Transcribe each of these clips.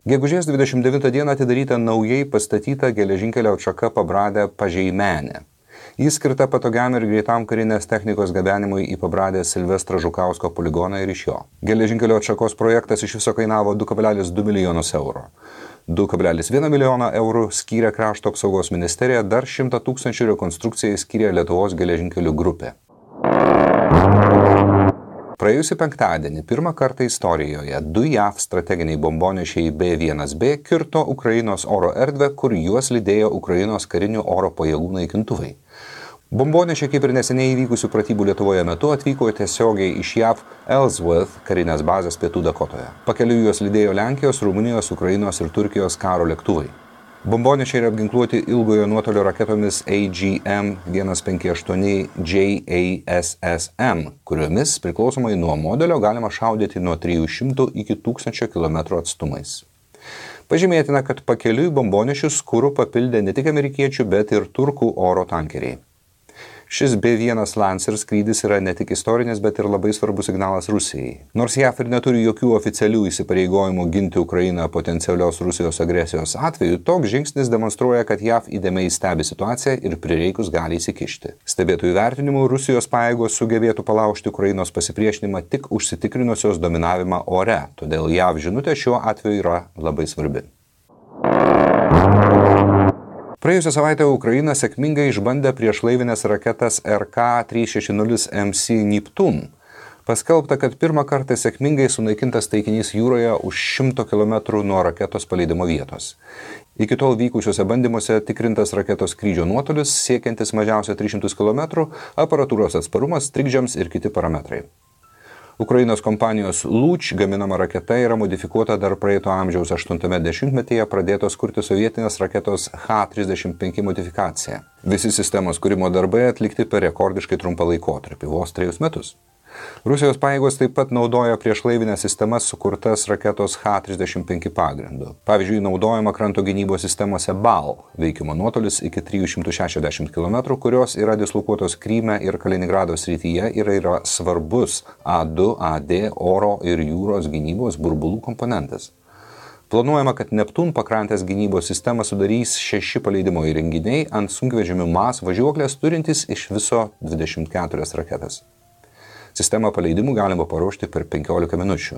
Gegužės 29 dieną atidaryta naujai pastatyta geležinkelio atšaka Pabradė-Pažeimenė. Jis skirta patogiam ir greitam karinės technikos gabenimui į Pabradės Silvestro Žukausko poligoną ir iš jo. Geležinkelio atšakos projektas iš viso kainavo 2,2 milijonus eurų. 2,1 milijoną eurų skyrė Krašto apsaugos ministerija, dar 100 000 rekonstrukcijai skyrė Lietuvos geležinkelių grupė. Praėjusį penktadienį pirmą kartą istorijoje 2 JAV strateginiai bombonešiai B-1B kirto Ukrainos oro erdvę, kur juos lydėjo Ukrainos karinių oro pajėgų naikintuvai. Bombonešiai, kaip ir neseniai įvykusių pratybų Lietuvoje metu, atvyko tiesiogiai iš JAV Ellsworth karinės bazės Pietų Dakotoje. Pakeliui juos lydėjo Lenkijos, Rumunijos, Ukrainos ir Turkijos karo lėktuvai. Bombonešiai yra apginkluoti ilgojo nuotolio raketomis AGM-158 JASSM, kuriomis priklausomai nuo modelio galima šaudyti nuo 300 iki 1000 km atstumais. Pažymėtina, kad pakeliui bombonešius kuru papildė ne tik amerikiečių, bet ir turkų oro tankeriai. Šis B-1 Lancer skrydis yra ne tik istorinis, bet ir labai svarbus signalas Rusijai. Nors JAV ir neturi jokių oficialių įsipareigojimų ginti Ukrainą potencialios Rusijos agresijos atveju, toks žingsnis demonstruoja, kad JAV įdėmiai stebi situaciją ir prireikus gali įsikišti. Stebėtojų vertinimu, Rusijos pajėgos sugebėtų palaužti Ukrainos pasipriešinimą tik užsitikrinusios dominavimą ore, todėl JAV žinutė šiuo atveju yra labai svarbi. Praėjusią savaitę Ukraina sėkmingai išbandė priešlaivinės raketas RK-360MC Neptun. Paskelbta, kad pirmą kartą sėkmingai sunaikintas taikinys jūroje už 100 km nuo raketos paleidimo vietos. Iki tol vykusiuose bandymuose tikrintas raketos skrydžio nuotolis, siekiantis mažiausiai 300 km, aparatūros atsparumas, trikdžiams ir kiti parametrai. Ukrainos kompanijos Luch gaminama raketa yra modifikuota dar praeito amžiaus 80-metyje pradėtos kurti sovietinės raketos H-35 modifikacija. Visi sistemos kūrimo darbai atlikti per rekordiškai trumpą laikotarpį, vos 3 metus. Rusijos pajėgos taip pat naudoja priešlaivinės sistemas sukurtas raketos H-35 pagrindu. Pavyzdžiui, naudojama kranto gynybos sistemose BAL, veikimo nuotolis iki 360 km, kurios yra dislokuotos Kryme ir Kaliningrado srityje ir yra svarbus A2, AD, oro ir jūros gynybos burbulų komponentas. Planuojama, kad Neptun pakrantės gynybos sistemą sudarys 6 paleidimo įrenginiai ant sunkvežimių MAS važiuoklės turintys iš viso 24 raketas. Sistemą paleidimų galima paruošti per 15 minučių.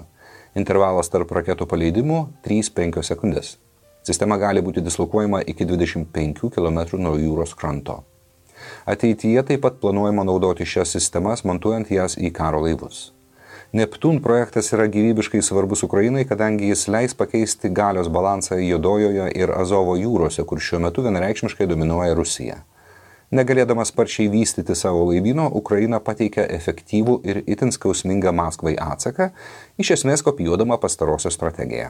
Intervalas tarp raketų paleidimų 3-5 sekundės. Sistema gali būti dislokuojama iki 25 km nuo jūros kranto. Ateityje taip pat planuojama naudoti šias sistemas, montuojant jas į karo laivus. Neptun projektas yra gyvybiškai svarbus Ukrainai, kadangi jis leis pakeisti galios balansą Juodojoje ir Azovo jūrose, kur šiuo metu vienareikšmiškai dominuoja Rusija. Negalėdama sparčiai vystyti savo laivyno, Ukraina pateikia efektyvų ir itin skausmingą Maskvai atsaką, iš esmės kopijuodama pastarosios strategiją.